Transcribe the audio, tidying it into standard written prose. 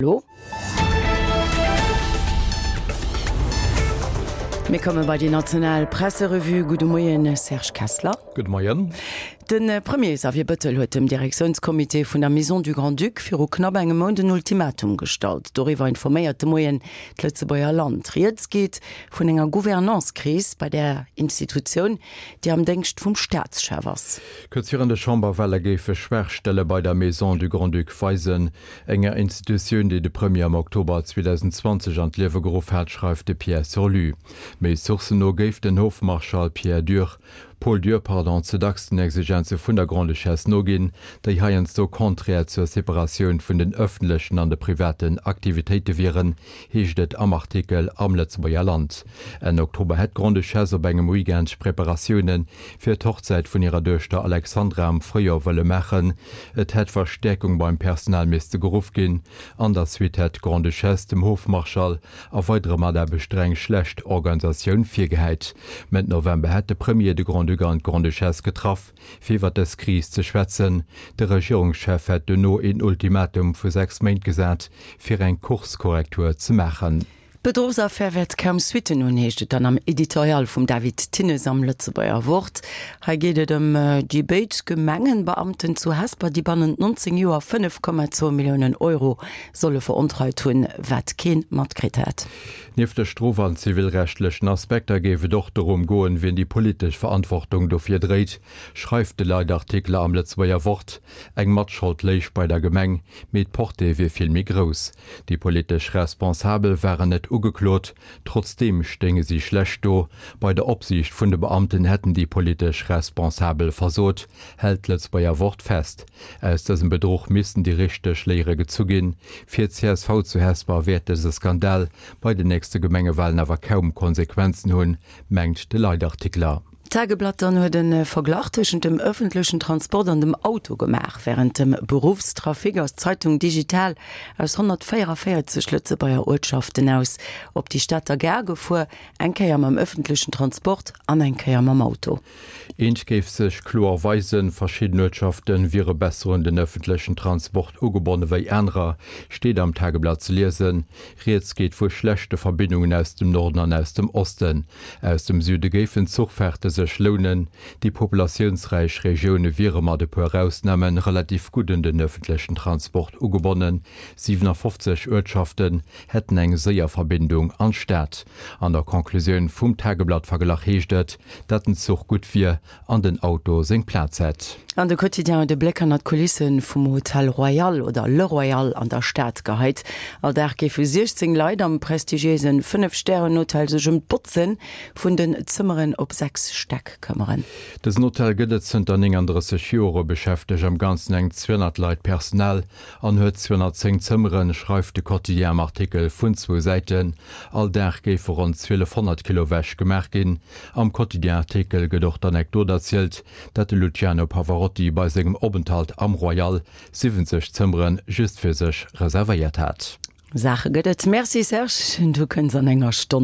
Elo. Mir komme bei déi national Presserevue. Gudde Moien, Serge Kessler. Gudde Moien. De Premier Xavier Bëttel huet dem Direktiounscomité vun der Maison du Grand-Duc viru knapp engem Mount en Ultimatum gestallt. Doriwwer informéiert de Moien d'Lëtzebuerger Land. Rieds geet vun enger Gouvernance-Kris bei där Institutioun, déi am Déngscht vum Staatschef ass. Kuerz virun de Chamberwale géife Schwaachstelle bei der Maison du Grand-Duc weisen, enger Institutioun, déi de Premier am Oktober 2020 an d'Liewe geruff hat, schreift de Pierre Surlu. Méi Sourcen no géif den Hofmarschall Pierre Dürr, Paul Dürr, pardon, ze dacks den Exigenze vun der Grande-Duchesse noginn, déi heiansdo konträr zur Separatioun vun den ëffentlechen an de privaten Aktivitéite wieren, heescht et am Artikel am Lëtzebuerger Land. Enn Oktober hätt d'Grande-Duchesse op engem Weekend Preparatioune fir d'Hochzäit vun hirer Duechter Alexandra am Fréijoer wëlle maachen. Et hätt Verstäerkung beim Personal misste geruff ginn. An der Suite hätt d'Grande-Duchesse dem Hofmarschall a weidere Mataarbechter eng schlecht Organisatioun virgehäit. Mëtt November hätt de Premier de Grand-Duc an d'Grande-Duchesse getraff, fir iwwer dës Kris ze schwätzen. De Regierungschef hätt duerno een Ultimatum vu 6 Méint gesat, fir eng Kurskorrektur ze maachen. D'Bedruchsaffär wäert kaum Suitten hunn, heescht et dann am Editorial vum David Thinnes am Lëtzebuerger Wort. Hei geet et ëm déi béid Gemengenbeamten zu Hesper, déi bannent 19 Joer 5,2 Milliounen Euro solle verontreit hunn, wat kee matkritt hätt. Nieft de strof an zivilrechtlechen Aspekter géif et och dorëm goen, wien déi politesch Verantwortung dofir dréit, schreift de Leitartikel am Lëtzebuerger Wort. Eng Matschold léich bei der Gemeng, mee d'Portée wier vill méi grouss. Déi politesch Responsabel waren net ugeklot, trotzdeem stéinge si schlecht do. Bei der Opsiicht vun de Beamten hätten déi politesch Responsabel versot, hält d'Lëtzebuerger Wort fest. Aus dësem Bedruch missten déi richteg Léiere gezu ginn. Fir d'CSV zu Hesper wäert dëse Skandal bei den nächste Gemengewalen awer kaum Konsequenzen hunn, mengt de Leitartikler. D'Tageblatt dann huet e Verglach tëschent dem ëffentlechen Transport an dem Auto gemaach. Wärend dem Beruffstrafic ass d'Zeitung digital aus 144 Lëtzebuerger Uertschaften aus op déi Stater Gare gefuer, eng Kéier mam ëffentlechen Transport an eng Kéier mam Auto. Eent géif sech kloer weisen, Verschidden Uertschafte wiere besser un den ëffentlechen Transport ugebonne wéi anerer, steet am Tageblatt ze liesen. Rieds geet vu schlechte Verbindungen aus dem Norden an aus dem Osten. Aus dem Süde géifen Zuchfaarte sech lounen. Déi populatiounsräich Regioune wiere mat e puer Ausname relativ gutt un den ëffentlechen Transport ugebonnen. 57 Uertschaften hätten eng séier Verbindung an d'Stad. An der Conclusioun vum Tageblatt-Verglach heescht et, dat den Zuch gutt wier an den Auto seng Plaz hätt. An de Quotidien huet e Bléck hannert d'Kulisse vum Hotel Royal oder Le Royal an der Stad geheit. All Dag géife 16 Leit am prestigiéise Fënnef-Stären-Hotel sech ëm d'Botze vun den Zëmmeren op 6 Stäck këmmeren. Dësen Hotel gëtt et zënter 39 Jore, beschäftegt am Ganzen eng 200 Leit Personal an huet 210 Zëmmeren, schreift de Quotidien am Artikel vun zwou Säiten. All Dag géife ronn 1.200 Kilo Wäsch gemaach ginn. Am Quotidien-Artikel gëtt och d'Anekdot erzielt, datt de Luciano Pavarotti bei sengem Openthalt am Royal 70 Zëmmere just fir sech reservéiert hat. Saache gëtt et. Merci Serge, du kënns an enger Stonn.